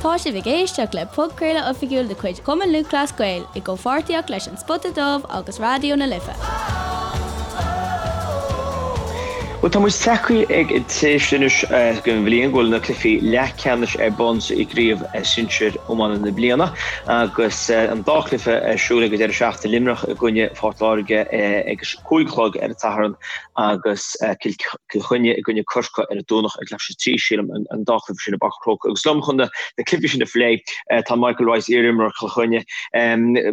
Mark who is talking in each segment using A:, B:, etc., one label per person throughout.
A: Tá sibh ag éisteacht le podchraoladh oifigiúil de chuid Chumann Lúthchleas Gael i gcomhpháirtíocht leis An Spota Dubh agus Raidió na Life.
B: Bhuel, tá muid tagtha ag an tréimhse anois den bhliain go bhfuil na cluichí leathcheannais ar bun sa gcraobh sinsir iomána na bliana agus an dá chluiche ar siúl ag an deireadh seachtaine, Luimneach i gcoinne Phort Láirge ag a 5 a chlog ar an Satharn agus Cill Chainnigh i gcoinne Corcaigh ar an Domhnach ag leathuair tar éis a 3, sílim, an dá chluiche sin i bPáirc an Chrócaigh. Agus liom chun na cluichí sin a phlé tá Michael Rice, iar-imreoir Chill Chainnigh.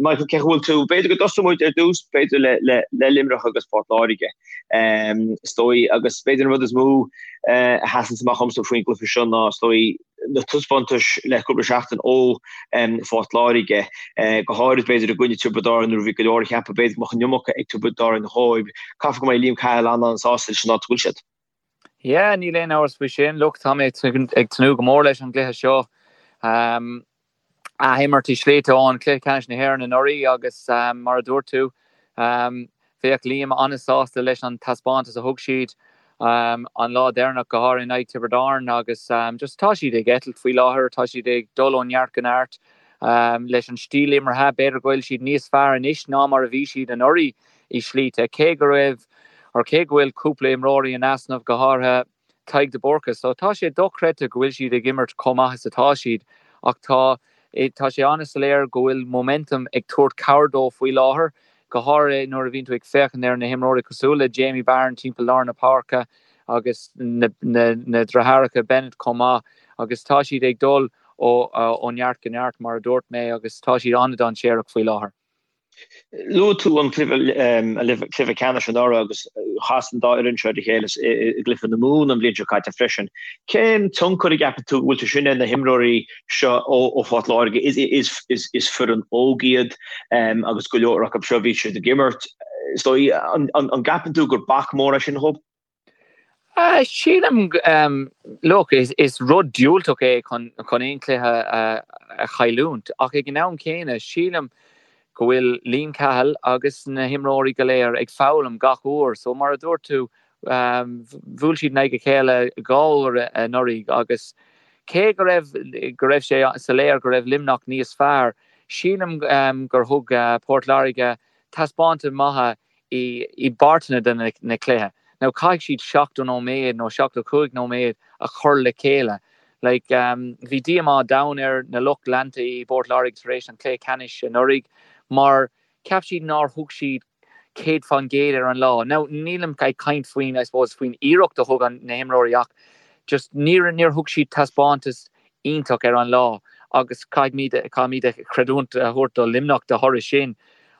B: Michael, cén chaoi a bhfuil tú? B'fhéidir go dtosóidh muid ar dtús, b'fhéidir le Luimneach agus Port Láirge, is dóigh, agus b'fhéidir an rud is mó a sheasann amach dhomsa faoin gcluiche seo ná, is dóigh, na taispeántais le cúpla seachtain ó Phort Láirge, go háirid b'fhéidir i gcoinne Tiobraid Árann nuair a bhí go leor ag ceapadh b'fhéidir go mbeadh an iomarca ag Tiobraid Árann dhóibh. Caithfidh go mbeidh Liam Cahill an-an-sásta leis an áit a bhfuil siad.
C: Yeah, níl aon amhras faoi sin. Look, tá mé ag tnúth go mór leis an gcluiche seo. Athimirt i slite ón Cluiche Ceannais na hÉireann anuraidh agus mar a dúirt tú, bheadh Liam an-sásta leis an taispeántas a thug siad an lá deireanach, go háirithe in aghaidh Tiobraid Árann agus just tá siad ag eitilt faoi láthair, tá siad ag dul ó neart go neart leis an stíl imeartha. B'fhéidir go bhfuil siad níos fearr anois ná mar a bhí siad anuraidh i slite, cé go raibh or cé go bhfuil cúpla imreoirí in easnamh, go háirithe Tadhg de Búrca. So tá sé dochreidte go bhfuil siad ag imirt chomh maith is atá siad ach tá tá sé an-soiléir go bhfuil momentum ag tabhairt cabhair dóibh faoi láthair, go háirithe nuair a bhíonn tú ag féachaint ar na himreoirí cosúil le Jamie Barron timpeall lár na páirce agus na na na deartháireacha Bennett chomh maith agus tá siad ag dul ó ó neart go neart mar a dúirt mé agus tá siad an-dainséarach faoi láthair.
B: Luaigh tú an cluiche ceannais anuraidh agus chas an dá fhoireann seo ar a chéile i gcluiche na Mumhan an bhliain seo caite freisin. Cén tionchar a gceapann tú go bhfuil sé sin ar na himreoirí seo ó Phort Láirge? Is foireann óg iad agus go leor acu seo bhí siad ag imirt. Is dóigh, an gceapann tú gur bac mór é sin dhóibh?
C: Sílim, look, is rud diúltach é chun aon chluiche a chailliúint ach ag an am céanna sílim go bhfuil Liam Cahill agus na himreoirí go léir ag foghlaim gach uair. So mar a dúirt tú, bhuail siad in aghaidh a chéile dhá uair anuraidh agus cé go raibh go raibh sé soiléir go raibh Luimneach níos fearr, sílim gur thug Port Láirge taispeántas maith i bpáirteanna de na cluiche. Now caithfidh siad 70 nóiméad nó 75 nóiméad a chur le chéile. Like, bhí díomá domhain ar na lucht leanta i bPort Láirge tar éis an chluiche ceannais anuraidh mar cheap siad nár thug siad 100% ar an lá. Now nílim ag caint faoin, I suppose, faoin iarracht a thug na himreoirí ach just níor, níor thug siad taispeántas iontach ar an lá agus caithfimid, caithfimid creidiúint a thabhairt do Luimneach de thoradh sin.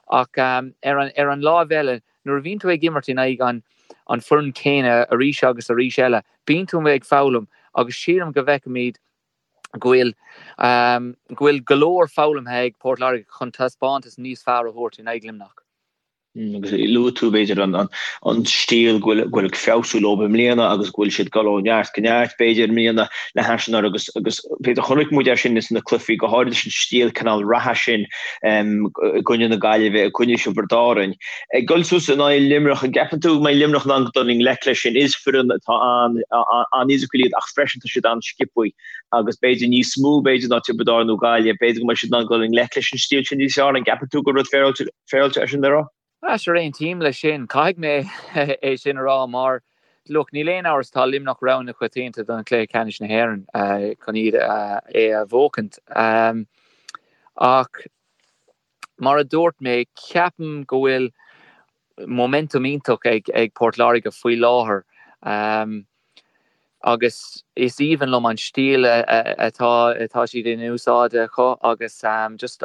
C: Ach ar an, ar an láimh eile, nuair a bhíonn tú ag imirt in aghaidh an, an foireann céanna arís agus arís eile, bíonn tú ag foghlaim agus sílim go bhfeicfimid go bhfuil, go bhfuil go leor foghlamtha ag Port Láirge chun taispeántas níos fearr a thabhairt in aghaidh Luimneach.
B: Agus luaigh tú, b'fhéidir, an stíl go bhfuil ag feabhsú leo i mbliana agus go bhfuil siad ag dul ó neart go neart, b'fhéidir, i mbliana le hais anuraidh agus agus b'fhéidir chonaic muid é sin sna cluichí, go háirid leis an stíl cineál reatha sin i gcoinne na Gaillimhe, i gcoinne Thiobraid Árann. Ag dul suas in aghaidh Luimneach, an gceapann tú go mbeidh Luimneach in ann dul i ngleic leis sin? Is foireann atá an-fhisiciúil iad ach freisin tá siad an-sciobtha agus b'fhéidir níos mó b'fhéidir ná Tiobraid Árann nó Gaillimh, b'fhéidir go mbeidh siad in ann dul i ngleic leis an stíl sin níos fearr. An gceapann tú gur rud féaráilte é sin le rá?
C: Sure, aontaím leis sin. Caithfidh mé é sin a rá mar, look, níl aon amhras tá Luimneach rogha na coitianta don chluiche ceannais na hÉireann chun iad é a bhuachaint. Ach mar a dúirt mé, ceapaim go bhfuil momentum iontach ag Port Láirge faoi láthair agus is aoibhinn liom an stíl atá atá siad in úsáid acu agus just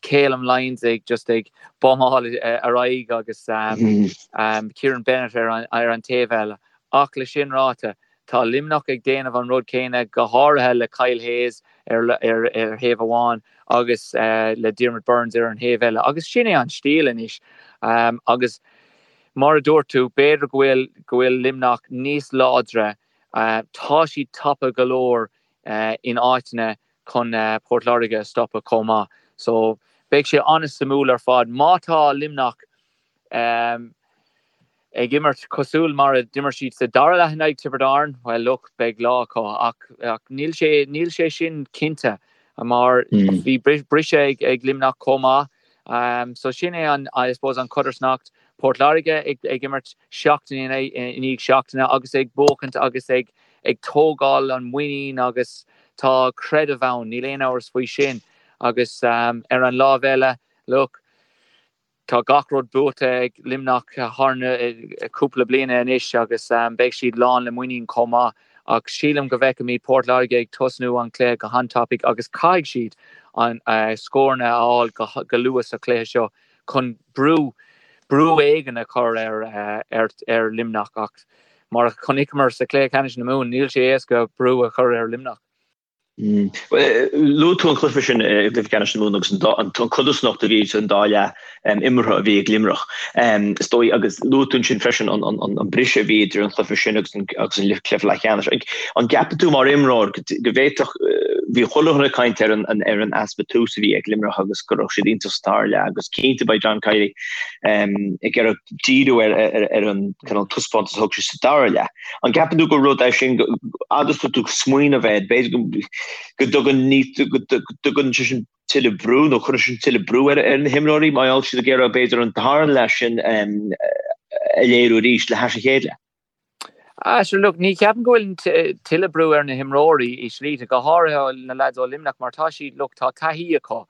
C: Calum Lyons ag just ag bumáil ar aghaidh agus Kieran Bennett ar an ar an taobh eile. Ach le sin ráite, tá Luimneach ag déanamh an rud céanna, go háirithe le Kyle Hayes ar ar ar thaobh amháin agus le Diarmaid Byrnes ar an thaobh eile. Agus sin é an stíl anois. Agus mar a dúirt tú, b'fhéidir go bhfuil go bhfuil Luimneach níos láidre. Tá siad tapa go leor in áiteanna chun Port Láirge a stopadh chomh maith. So beidh sé an-suimiúil ar fad. Má tá Luimneach ag imirt cosúil mar a d'imir siad sa dara leath in aghaidh Tiobraid Árann, well look, beidh lá acu. Ach níl sé, níl sé sin cinnte. mar bhí briseadh ag Luimneach chomh maith. So sin é an, I suppose, an chodarsnacht. Port Láirge ag imirt seachtain i ndiaidh seachtaine agus ag buachaint agus ag ag tógáil an muinín agus tá creideamh ann, níl aon amhras faoi sin. Agus ar an lámh eile, look, Tá gach rud buaite ag Luimneach thar na cúpla bliana anois agus beidh siad lán le muinín chomh maith ach sílim go bhfeicfimid Port Láirge ag tosnú an chluiche go han-tapaidh agus caithfidh siad an scóranna a fháil go luath sa chluiche seo chun brú brú éigin a chur ar ar Luimneach ach mar a chonaiceamar sa chluiche ceannais na Mumhan níl sé éasca brú a chur ar Luimneach.
B: Luaigh tú an cluiche sin i gcluiche ceannais na Mumhan agus an codarsnacht a bhí idir an dá leath imeartha a bhí ag Luimneach. Is dóigh, agus luaigh tú ansin freisin an briseadh a bhí idir an cluiche sin agus an cluiche leathcheannais. An gceapann tú mar imreoir go bhféadfadh, bhí chuile dhuine ag caint ar an easpa tús a bhí ag Luimneach agus go raibh siad iontach sa dara leath agus cinnte beidh John Kiely ag iarraidh díriú ar an cineál taispeántas a thug sé sa dara leath. An gceapann tú gur rud é sin, agus tú ag smaoineamh air, b'fhéidir go dtugann go dtugann sé sin tuilleadh brú nó cuireann sin tuilleadh brú ar na himreoirí mar gheall siad ag iarraidh b'fhéidir an dara leath sin a léiriú arís le hais a chéile?
C: Ah, sure, look, ní cheapaim go bhfuil tuilleadh brú ar na himreoirí i slite, go háirithe na lads ó Luimneach mar tá siad, look, tá taithí acu.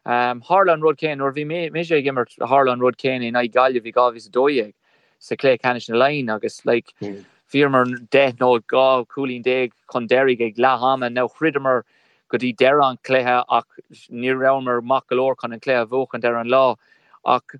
C: Tharla an rud céanna nuair a bhí mise ag imirt, tharla an rud céanna in aghaidh Gaillimh i 2012. sa chluiche ceannais na Laighean agus like bhíomar 10 nó 12 cúilín chun deiridh ag leath ama. Now throideamar go dtí deireadh an chluiche ach ní rabhamar maith go leor chun an cluiche a bhuachaint ar an lá. Ach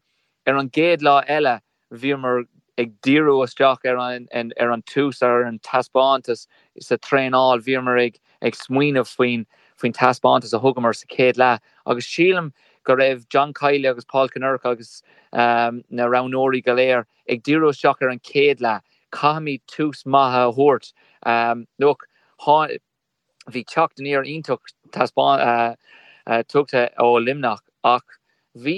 C: ar an gcéad lá eile bhíomar ag díriú isteach ar an ar an tús ar an taispeántas sa traenáil bhíomar ag ag smaoineamh faoin faoin taispeántas a thugamar sa chéad leath agus sílim go raibh John Kiely agus Paul Kinnerk agus na roghnóirí go léir ag díriú isteach ar an chéad leath. Caithfimid tús maith a thabhairt. Look, bhí teacht aniar iontach tugtha ó Luimneach ach bhí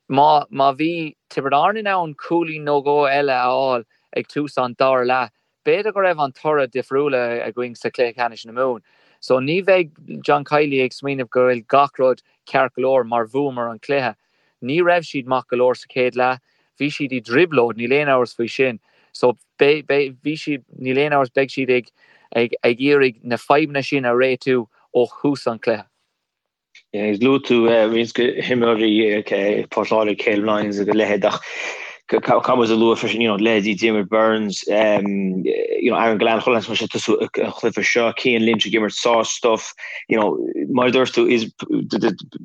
C: má má bhí Tiobraid Árann in ann cúilín nó dhó eile a fháil ag tús an dara leath, B'fhéidir go raibh an toradh difriúil againn sa chluiche ceannais na Mumhan. So ní bheidh John Kiely ag smaoineamh go bhfuil gach rud ceart go leor mar bhuamar an cluiche. Ní raibh siad maith go leor sa chéad leath. Bhí siad i dtrioblóid, níl aon amhras faoi sin. So beidh, beidh, bhí siad, níl aon amhras, beidh siad ag, ag, ag iarraidh na fadhbanna sin a réitiú ó thús an chluiche.
B: Luaigh tú roinnt de himreoirí Port Láirge, Caleb Lyons agus a leithéid ach caithfidh muid a lua freisin, you know, leithéidí Diarmaid Byrnes, you know, Aaron Gillane, chuile sheans go mbeidh sé ag tosú an chluiche seo, Cian Lynch ag imirt sár-stuif, you know, mar a dúirt tú, is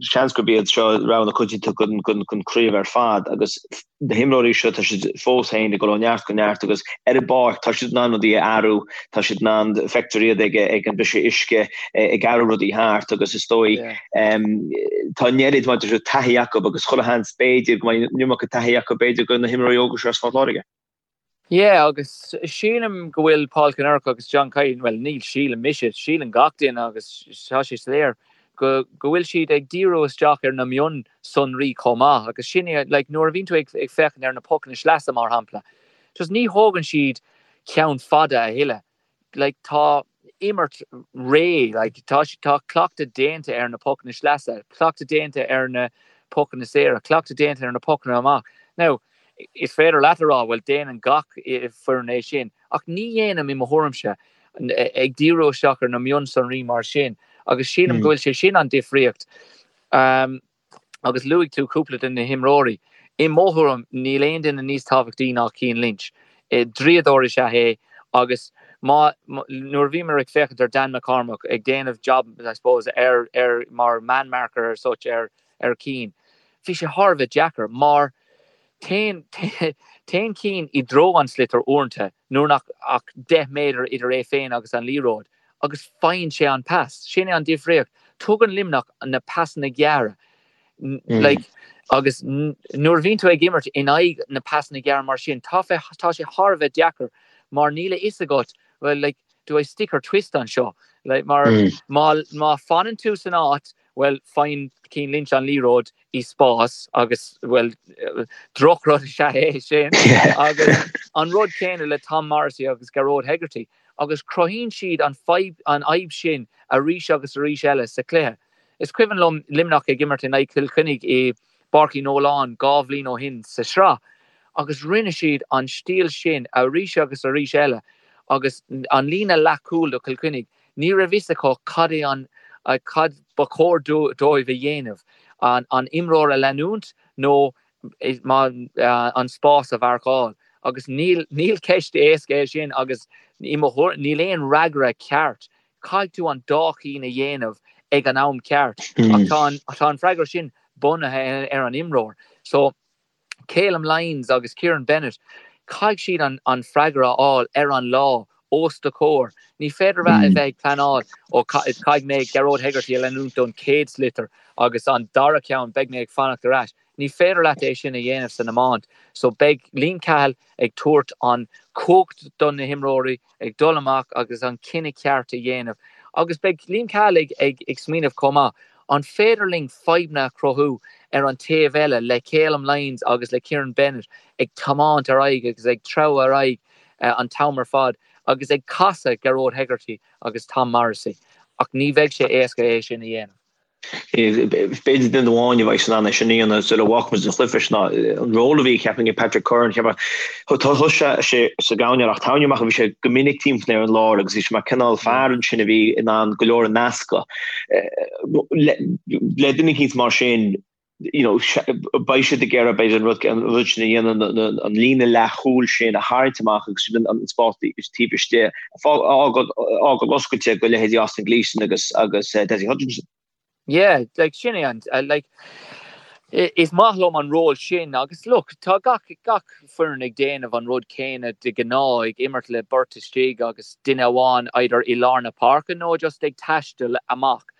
B: seans gurb iad seo rogha na coitianta don chraobh ar fad agus na himreoirí seo, tá siad fós féin ag dul ó neart go neart agus ar an bpáirc tá siad in ann rudaí a athrú, tá siad in ann, feictear iad ag ag an briseadh uisce, ag athrú rudaí thart agus is dóigh tá an oiread mar a dúirt tú taithí acu agus chuile sheans b'fhéidir go mbeidh an iomarca taithí acu b'fhéidir do na himreoirí óga seo as Phort Láirge.
C: Yeah, agus sílim go bhfuil Paul Kinnerk agus John Kiely, bhuel níl sílim mise, síleann gach duine agus tá sé soiléir go go bhfuil siad ag díriú isteach ar na mionsonraí chomh maith agus sin é, like nuair a bhíonn tú ag ag féachaint ar na pocanna sleasa mar shampla, just ní thógann siad ceann fada a thuilleadh. like tá imirt réidh, like tá tá cleachtadh déanta ar na pocanna sleasa, cleachtadh déanta ar na pocanna saora, cleachtadh déanta ar na pocanna amach. Now, is féidir leat a rá, bhuel déanann gach foireann é sin, ach ní dhéanaim i mo thuairimse, ag díriú isteach ar na mionsonraí mar sin, agus sílim go bhfuil sé sin an difríocht. Um, Agus luaigh tú cúpla de na himreoirí. I mo thuairim, níl aon duine níos tábhachtaí ná Cian Lynch. Draíodóir is ea é agus má, nuair a bhíomar ag féachaint ar Dan McCormack ag déanamh job, I suppose, ar, ar, mar man marker as such ar, ar Cian, bhí sé thar a bheith deacair mar téann, téann Cian i dtreo an sliotar uaireanta nuair nach ach 10 méadar idir é féin agus an liathróid. agus faigheann sé an pas. Sin é an difríocht. Tugann Luimneach na pasanna gearra. Like, agus nuair a bhíonn tú ag imirt in aghaidh na pasanna gearra mar sin, tá tá sé thar a bheith deacair mar níl a fhios agat, well, like, do I stick or twist anseo? Like, mar má, má fanann tú san áit, well, faigheann Cian Lynch an liathróid i spás agus, well, drochrud is ea é sin. Agus an rud céanna le Tom Morrissey agus Gearóid Hegarty. agus cruthaíonn siad an fadhb, an fhadhb sin arís agus arís eile sa chluiche. Is cuimhin liom Luimneach ag imirt in aghaidh Chill Chainnigh i bPáirc Uí Nualláin 2 bhliain ó shin sa sraith agus rinne siad an stíl sin arís agus arís eile agus an líne leathchúil do Chill Chainnigh, ní raibh fhios acu cad é an, cad ba chóir dóibh a dhéanamh, an imreoir a leanúint nó an spás a mharcáil agus níl, níl ceist éasca é sin agus i mo thuairim níl aon fhreagra ceart. Caithfidh tú an dá chinn a dhéanamh ag an am ceart ach tá an, tá an freagra sin bunaithe ar an imreoir. So Calum Lyons agus Kieran Bennett, caithfidh siad an, an freagra a fháil ar an lá os do chomhair. Ní féidir a bheith ag pleanáil ó caithfidh mé Gearóid Hegarty a leanúint don chéad sliotar agus an dara ceann beidh mé ag fanacht ar ais. Ní féidir leat é sin a dhéanamh san iomáint. So beidh Liam Cahill ag tabhairt an chumhacht do na himreoirí ag dul amach agus an cinneadh ceart a dhéanamh. Agus beidh Liam Cahill ag ag ag smaoineamh chomh maith, an féidir linn fadhbanna a chruthú ar an taobh eile le Calum Lyons agus le Kieran Bennett ag tiomáint ar aghaidh agus ag treabhadh ar aghaidh an t-am ar fad agus ag casadh Gearóid Hegarty agus Tom Morrissey. Ach ní bheidh sé éasca é sin a dhéanamh.
B: B'fhéidir duine amháin a bheidh in ann é sin a dhéanamh sula bhfágfaidh muid an chluiche sin ná an ról a bhí ceapaim ag Patrick Curran. Cheapfá thosaigh sé sa gcoirnéal ach tairne amach bhí sé go minic timpeall ar an lár agus bhí sé mar cineál fear ansin a bhí in ann go leor a nascadh. Le duine eicínt mar sin you know, beidh siad ag iarraidh b'fhéidir an rud an rud sin a dhéanamh an líne leathchúil sin a tharraingt amach agus an spás taobh istigh a fhágáil oscailte do leithéidí Austin Gleeson agus agus Dessie Hutchinson.
C: Yeah, like sin é an like is maith liom an ról sin agus look tá gach gach foireann ag déanamh an rud céanna de ghnáth ag imirt le beirt istigh agus duine amháin either i lár na páirce nó just ag taisteal amach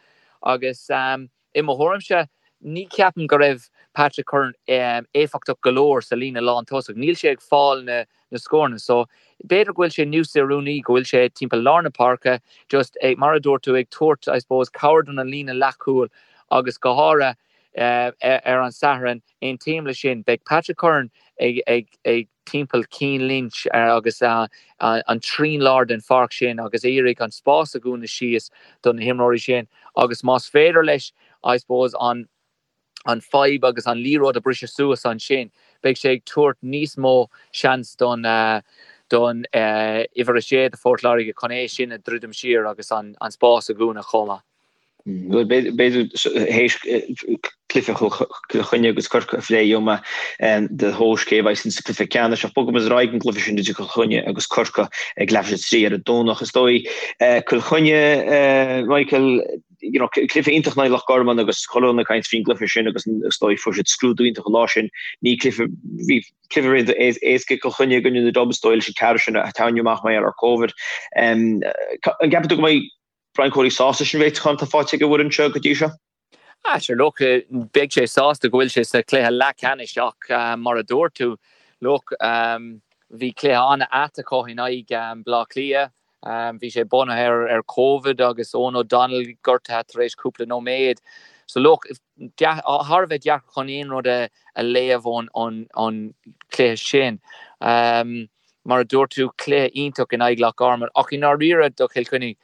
C: agus um, I mo thuairimse, ní cheapaim go raibh Patrick Curran éifeachtach go leor sa líne lántosach. Níl sé ag fáil na scóranna so b'fhéidir go bhfuil sé níos oiriúnaí go bhfuil sé timpeall lár na páirce just ag, mar a dúirt tú, ag tabhairt, I suppose, cabhair don líne leathchúil agus go háirithe ar an Satharn, aontaím le sin, beidh Patrick Curran ag, ag, ag. timpeall Cian Lynch agus an trian láir den pháirc sin agus iarraidh an spás a dhúnadh síos do na himreoirí sin agus más féidir leis I suppose an an fadhb agus an liathróid a briseadh suas ansin beidh sé ag tabhairt níos mó seans don don uimhir 6 do Phort Láirge chun é sin a dhruidim siar agus an spás a dhúnadh chomh maith.
B: B'fhéidir théis cluiche Chill Chainnigh agus Corcaigh a phlé gheobhaidh mé do thomhas cé a bheidh sa cluiche ceannais ach bogfaidh muid ar aghaidh an gcluiche sin idir Cill Chainnigh agus Corcaigh ag leathuair tar éis a 3 ar an Domhnach. Is dóigh Cill Chainnigh, Michael, you know, cluiche iontach in aghaidh Loch Garman agus chuile dhuine ag caint faoin gcluiche sin agus is dóigh fuair siad scrúdú iontach an lá sin. Ní cluiche, bhí cluiche éasca ag Cill Chainnigh i gcoinne na Dubs, is dóigh leis an ceathrú sin a tarraingeadh amach mar gheall ar Covid. An gceapann tú go mbeidh Brian Cody sásta leis an réiteachán atá faighte ag an bhfoireann seo go dtí seo?
C: Ah sure look, beidh sé sásta go bhfuil sé sa chluiche leathcheannais ach mar a dúirt tú, look, bhí cluiche an-ait acu in aghaidh Bleá Cliath. Bhí sé bunaithe ar Covid agus Eoghan O'Donnell gortaithe tar éis cúpla nóiméad. So look, thar a bheith deacair chun aon rud a léamh ón chluiche sin. Mar a dúirt tú, cluiche iontach in aghaidh Loch Garman ach i ndáiríre do Chill Chainnigh,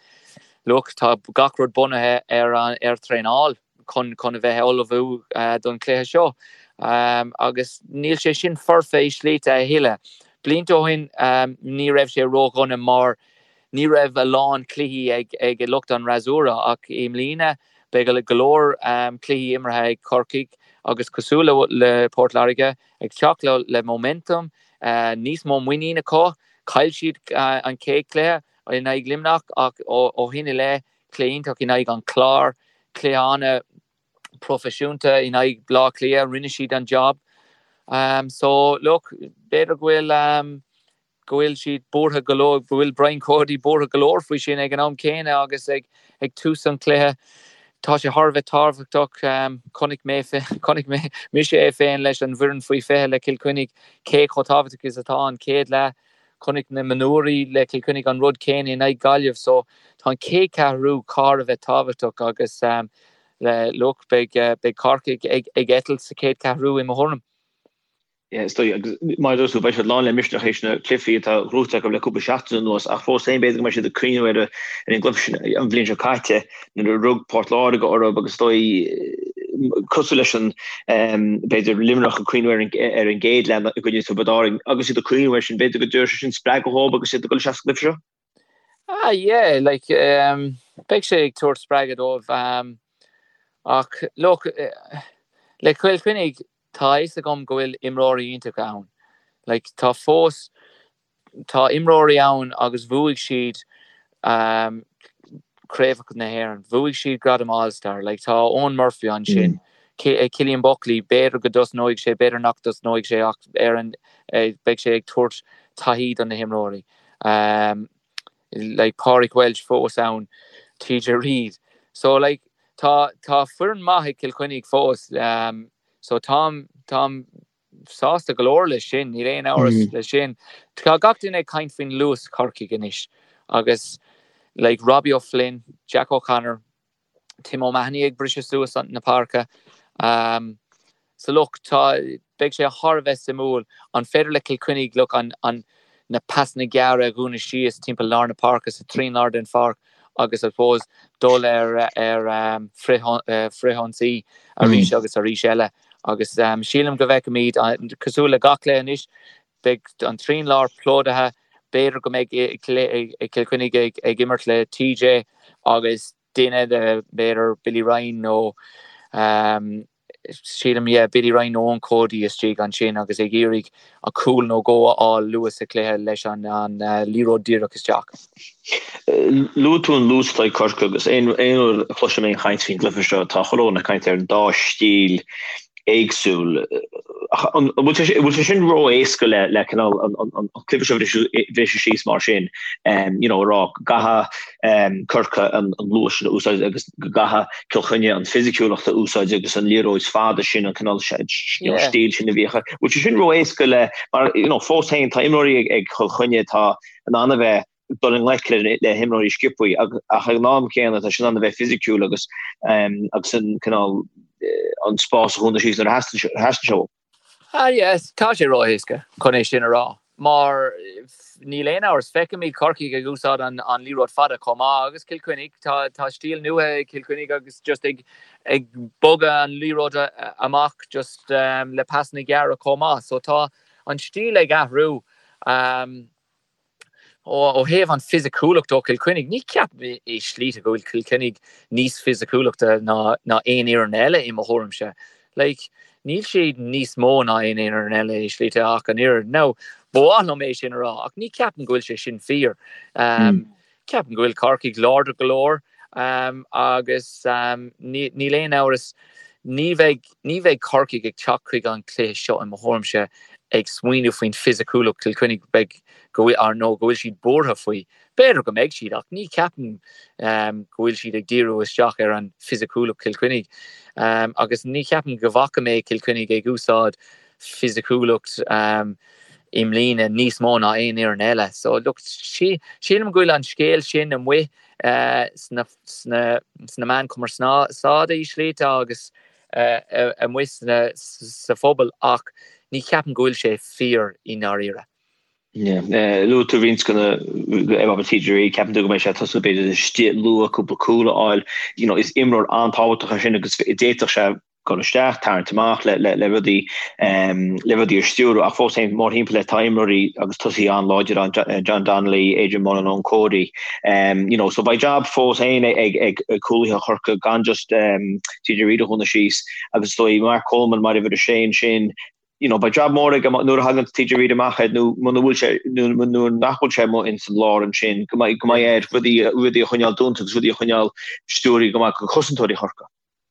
C: look, tá gach rud bunaithe ar ar traenáil chun chun a bheith ullmhú don chluiche seo agus níl sé sin foirfe i slite a thuilleadh. Blianta ó shin ní raibh sé ródhona mar ní raibh a lán cluichí ag ag lucht an fhreasúra ach i mbliana beidh go leor cluichí imeartha ag Corcaigh agus cosúil le Port Láirge ag teacht le momentum níos mó muinín acu. Chaill siad an chéad chluiche in aghaidh Luimneach ach ó shin i leith, cluiche iontach in aghaidh an Chláir, cluiche an-phroifisiúnta in aghaidh Bleá Cliath, rinne siad an job. So look, b'fhéidir go bhfuil go bhfuil siad buartha go leor, go bhfuil Brian Cody buartha go leor faoi sin ag an am céanna agus ag tús an chluiche. Tá sé thar a bheith tábhachtach. Chonaic mé, chonaic mé, mise é féin leis an bhfoireann faoi 20 le Cill Chainnigh cé chomh tábhachtach is atá an chéad leath. Chonaic na mionúirí le Cill Chainnigh an rud céanna in aghaidh Gaillimh. So tá an chéad cheathrú thar a bheith tábhachtach agus look, beidh, beidh Corcaigh ag, ag eitilt sa chéad cheathrú i mo thuairim.
B: Yeah, is dóigh, agus mar a dúirt tú, beidh siad lán le misneach théis na cluichí atá gnóthaithe acu le cúpla seachtain anuas, ach fós féin b'fhéidir go mbeidh siad ag cuimhneamh ar an gcluiche sin an bhliain seo caite nuair a rug Port Láirge orthu agus is dóigh cosúil leis an b'fhéidir Luimneach ag cuimhneamh ar an ar an gcéad leath i gcoinne Tiobraid Árann agus iad ag cuimhneamh air sin, b'fhéidir go dtabharfaidh sé sin spreagadh dhóibh agus iad ag dul isteach sa gcluiche seo.
C: Ah yeah, like beidh sé ag tabhairt spreagadh dóibh ach look le Cill Chainnigh tá a fhios agam go bhfuil imreoirí iontacha ann. Like tá fós tá imreoirí ann agus bhuaigh siad craobhacha na hÉireann, bhuaigh siad gradam All Star, like tá Eoin Murphy ansin, Cillian Buckley, b'fhéidir go dtosnóidh sé, b'fhéidir nach dtosnóidh sé ach ar an beidh sé ag tabhairt taithí do na himreoirí. Like Pádraig Walsh fós ann, TJ Reid. So like tá tá foireann maith ag Cill Chainnigh fós. So táim táim sásta go leor leis sin, níl aon amhras leis sin. Tá gach duine ag caint faoin luas Chorcaigh anois agus like Robbie O'Flynn, Jack O'Connor, Tim O'Mahony ag briseadh suas na páirce. So look, tá, beidh sé thar a bheith suimiúil, an féidir le Cill Chainnigh, look, an, an, na pasanna gearra a dhúnadh síos timpeall lár na páirce, sa trian lár den pháirc agus I suppose dul ar, ar frithionsaí arís agus arís eile. Agus sílim go bhfeicfimid, cosúil le gach cluiche anois, beidh an trian lár plódaithe, b'fhéidir go mbeidh Cill Chainnigh ag imirt le TJ agus duine de, b'fhéidir Billy Ryan nó sílim, yeah, Billy Ryan nó Eoin Cody istigh ansin agus ag iarraidh a cúl nó dhó a fháil luath sa chluiche leis an liathróid díreach isteach.
B: Luaigh tú an luas atá ag Corcaigh agus aon uair a chloisim aon chaint faoin gcluiche seo tá chuile dhuine ag caint ar an dá stíl éagsúil. An bhfuil sé sin ró-éasca le le cineál an cluiche seo a bhriseadh síos mar sin, you know, a rá go gcaithfidh Corcaigh an luas sin a úsáid agus go gcaithfidh Cill Chainnigh an fisiciúlacht a úsáid agus an liathróid fada sin, an cineál stíl sin a bhíodh. Bhfuil sé sin ró-éasca le mar you know, fós féin tá imreoirí ag Cill Chainnigh atá in ann a bheith ag dul i ngleic le himreoirí sciobthaí ach ag an am céanna tá siad in ann a bheith fisiciúil agus agus an cineál an spás a dhúnadh síos nuair a theastaíonn sé uathu.
C: Ah yes, tá sé ró-éasca chun é sin a rá mar níl aon amhras, feicimid Corcaigh ag úsáid an liathróid fada chomh maith agus Cill Chainnigh, tá tá stíl nua ag Cill Chainnigh agus just ag ag bogadh an liathróid amach just le pasanna gearra chomh maith so tá an stíl ag athrú. Ó thaobh an fisiciúlacht ó Chill Chainnigh, ní ceapaim i slite go bhfuil Cill Chainnigh níos fisiciúlachta ná aon fhoireann eile i mo thuairimse. Like, níl siad níos mó ná aon fhoireann eile i slite ach an oiread. Now, ba mhaith liom é sin a rá ach ní ceapaim go bhfuil sé sin fíor. Ceapaim go bhfuil Corcaigh láidir go leor agus níl aon amhras, ní bheidh, ní bheidh Corcaigh ag teacht chuig an chluiche seo i mo thuairimse ag smaoineamh faoin fisiciúlacht Chill Chainnigh, beidh, go bhfuil, nó go bhfuil siad buartha faoi. B'fhéidir go mbeidh siad ach ní ceapaim go bhfuil siad ag díriú isteach ar an fisiciúlacht Chill Chainnigh agus ní cheapaim go bhfaca mé Cill Chainnigh ag úsáid fisiciúlacht i mbliana níos mó ná aon fhoireann eile. So look, sílim go bhfuil an scéal sin amuigh sna sna meáin chumarsáide i slite agus amuigh sa phobal ach ní cheapaim go bhfuil sé fíor i ndáiríre.
B: Luaigh tú roinnt de na ar TJ Reid, ceapann tú go mbeidh sé ag tosú b'fhéidir istigh luath cúpla cúl a fháil. You know, is imreoir an-tábhachtach é sin agus d'fhéadfadh sé dul isteach, tarraingt amach le le rudaí le rudaí a stiúradh ach fós féin mórthimpeall air tá imreoirí agus tosaithe an-láidir ann, John Donnelly, Adrian Mullen, Eoin Cody. You know, so beidh jab fós féin ag ag cúlaithe Chorcaí gan just TJ Reid a dhúnadh síos agus is dóigh Mark Coleman mar uimhir a sé ansin, you know, beidh jab mór aige nuair a thagann TJ Reid amach air nó muna bhfuil sé nó nuair nach bhfuil sé amuigh ins an lár ansin go mbeidh go mbeidh air rudaí rudaí a choinneáil dúnta agus rudaí a choinneáil stiúrtha go maith do chosantóirí Chorcaí.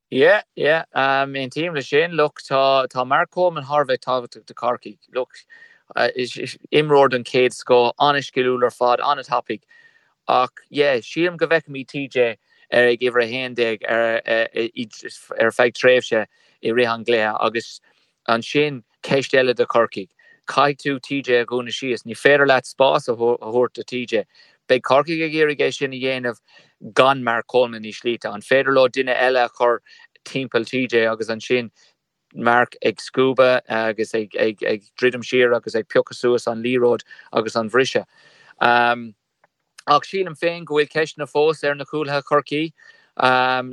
C: Yeah, yeah, aontaím leis sin. Look, tá tá Mark Coleman thar a bheith tábhachtach do Chorcaigh. Look, imreoir den chéad scoth, an-sciliúil ar fad, an-tapaidh. Ach yeah, sílim go bhfeicfimid TJ ar ag uimhir 11 ar ar feadh tréimhse i rith an gcluiche agus ansin ceist eile do Chorcaigh. Caithfidh tú TJ a dhúnadh síos. Ní féidir leat spás a thabhairt do TJ. Beidh Corcaigh ag iarraidh é sin a dhéanamh gan Mark Coleman i slite. An féidir leo duine eile a chur timpeall TJ agus ansin. Mark ag scuabadh agus ag druidim siar agus ag piocadh suas an liathróid agus an bhriseadh. Ach sílim féin go bhfuil ceisteanna fós ar na cúlaithe Chorcaí.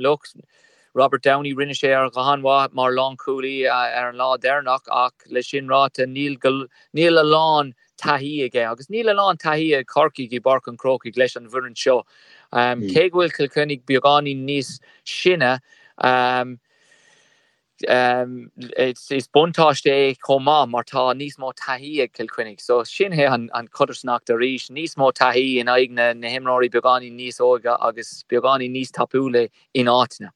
C: Look, Robert Downey, rinne sé go han-mhaith mar lánchúlaí ar an lá deireanach ach le sin ráite níl níl a lán taithí aige agus níl a lán taithí ag Corcaigh i bPáirc an Chrócaigh leis an bhfoireann seo. Cé go bhfuil Cill Chainnigh beagáinín níos sine, Is buntáiste é chomh maith mar tá níos mó taithí ag Cill Chainnigh. So sin é an chodarsnacht arís, níos mó taithí in aghaidh na himreoirí beagáinín níos óige agus beagáinín níos tapúla in áiteanna.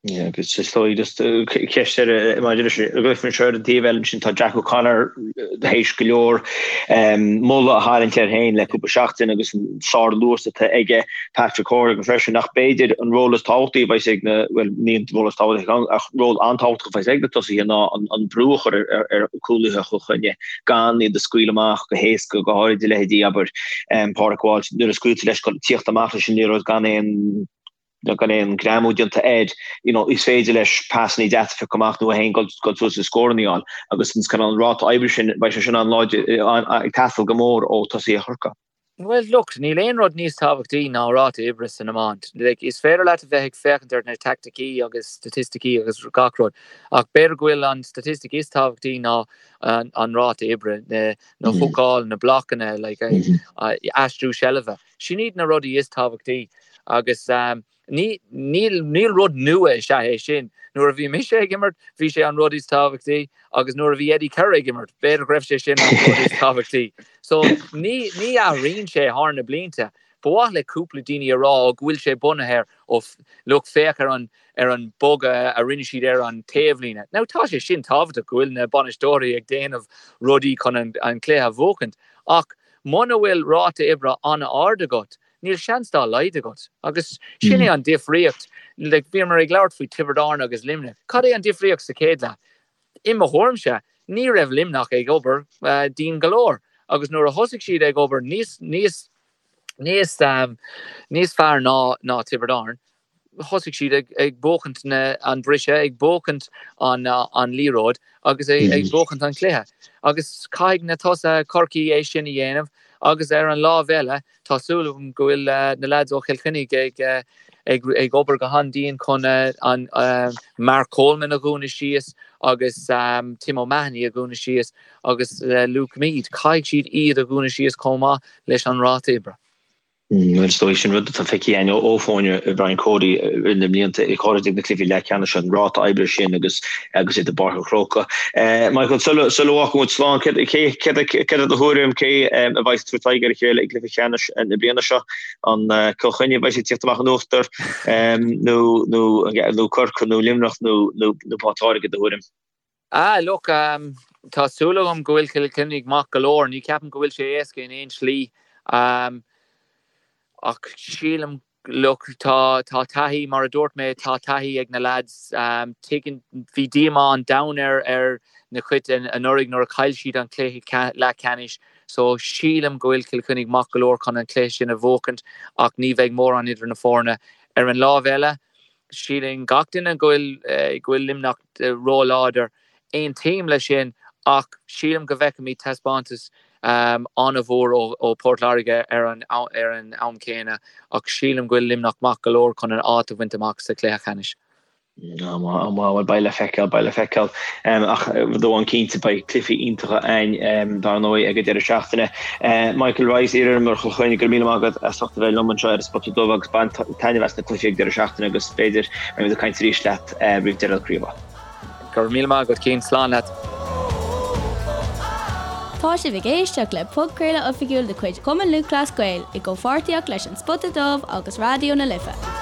B: Yeah, agus is dóigh just ceist eile maidir leis an gcluiche anseo ar an taobh eile ansin tá Jack O'Connor théis go leor moladh a tharraingt air féin le cúpla seachtain agus an sár-luas atá aige. Patrick Hourigan freisin, ach b'fhéidir an ról is tábhachtaí a bheas ag na, bhuel, ní an ról is tábhachtaí ach ról an-tábhachtach a bheas ag na tosaithe ná an brú a chur ar chúlaithe Chill Chainnigh, gan iad a scaoileadh amach go héasca, go háirid a leithéidí, abair, Pádraig Walsh, nuair a scaoiltear leis tíocht amach leis an liathróid gan aon gan aon greamú déanta air, you know, is féidir leis pasannaí deasa a phiocadh amach nó é féin dul suas is scóranna a fháil agus an cineál ráta oibre sin, beidh sé sin an-láidir, ag teastáil go mór ó tosaithe Chorcaí.
C: Bhuel, look, níl aon rud níos tábhachtaí ná ráta oibre san iomáint. Like, is féidir leat a bheith ag féachaint ar na teaicticí agus staitisticí agus gach rud, ach b'fhéidir go bhfuil an staitistic is tábhachtaí ná an, an ráta oibre, na, na húcáil, na blocanna, like, aistriú seilbhe. Sin iad na rudaí is tábhachtaí agus, um, Ní, níl, níl rud nua is ea é sin. Nuair a bhí mise ag imirt, bhí sé an rud is tábhachtaí agus nuair a bhí Eddie Kerr ag imirt, b'fhéidir go raibh sé sin an rud is tábhachtaí. So, ní, ní athraíonn sé thar na blianta. Ba mhaith le cúpla daoine a rá ó go bhfuil sé bunaithe ar, ó, look, féach ar an, ar an bogadh a rinne siad ar an taobhlíne. Now, tá sé sin tábhachtach go bhfuil na bainisteoirí ag déanamh rudaí chun an, an cluiche a bhuachaint. Ach muna bhfuil ráta oibre an-ard agat, Níl seans dá laghad agat. Agus sin é an difríocht. Like, bhíomar ag labhairt faoi Tiobraid Árann agus Luimneach. Cad é an difríocht sa chéad leath? I mo thuairimse, ní raibh Luimneach ag obair dian go leor. Agus nuair a thosaigh siad ag obair níos, níos, níos, níos fearr ná, ná Tiobraid Árann, thosaigh siad ag buachaint an briseadh, ag buachaint an liathróid agus ag buachaint an chluiche. Agus caithfidh na tosaithe Chorcaí é sin a dhéanamh agus ar an lámh eile tá súil agam go bhfuil na leaids ó Chill Chainnigh ag obair go han-dian chun an Mark Coleman a dhúnadh síos agus Tim O'Mahony a dhúnadh síos agus Luke Meade. Caithfidh siad iad a dhúnadh síos chomh maith leis an ráta oibre.
B: Bhuel, is dóigh sin rud atá feicthe againn ó fhoirne Brian Cody i na blianta, go háirid ag na cluichí leathcheannais, an ráta oibre sin agus agus iad i bPáirc an Chrócaigh. Michael, sula bhfágfaidh muid slán, céard é do thuairim, cé a bheidh ag tabhairt aghaidh ar a chéile i gcluiche ceannais na bliana seo? An Cill Chainnigh a bheidh ag tíocht amach in uachtar nó Corcaigh nó Luimneach nó Port Láirge, i do thuairim?
C: Ah, look, tá súil agam go bhfuil Cill Chainnigh maith go leor. Ní ceapaim go bhfuil sé éasca in aon slí. Ach sílim, look, tá, tá taithí, mar a dúirt mé, tá taithí ag na lads. Tuigeann, bhí díomá an domhain ar, ar na cuid anuraidh nuair a chaill siad an cluiche leathcheannais. So, sílim go bhfuil Cill Chainnigh maith go leor chun an cluiche sin a bhuachaint ach ní bheidh mórán idir na foirne. Ar an lámh eile, Síleann gach duine go bhfuil go bhfuil Luimneach ró-láidir. Aontaím leis sin ach sílim go bhfeicfimid taispeántas an-mhór ó Port Láirge ar an ar an am céanna ach sílim go bhfuil Luimneach maith go leor chun an áit a bhaint amach sa chluiche ceannais.
B: Am bhuel beidh le feiceáil, beidh le feiceáil. Ach rud amháin cinnte beidh cluichí iontacha againn dar ndóigh ag an deireadh seachtaine. Michael Rice, iar-imreoir Chill Chainnigh, go raibh míle maith agat as ucht a bheith liom anseo ar an Spota Dubh agus bain taitneamh as na cluichí ag deireadh seachtaine agus b'fhéidir beimid ag caint arís leat roimh deireadh na craoibhe.
C: Go raibh míle maith agat Cian, slán leat.
A: Tá sibh ag éisteacht le podchraoladh oifigiúil de chuid Chumann Lúthchleas Gael i gcomhpháirtíocht leis An Spota Dubh agus Raidió na Life.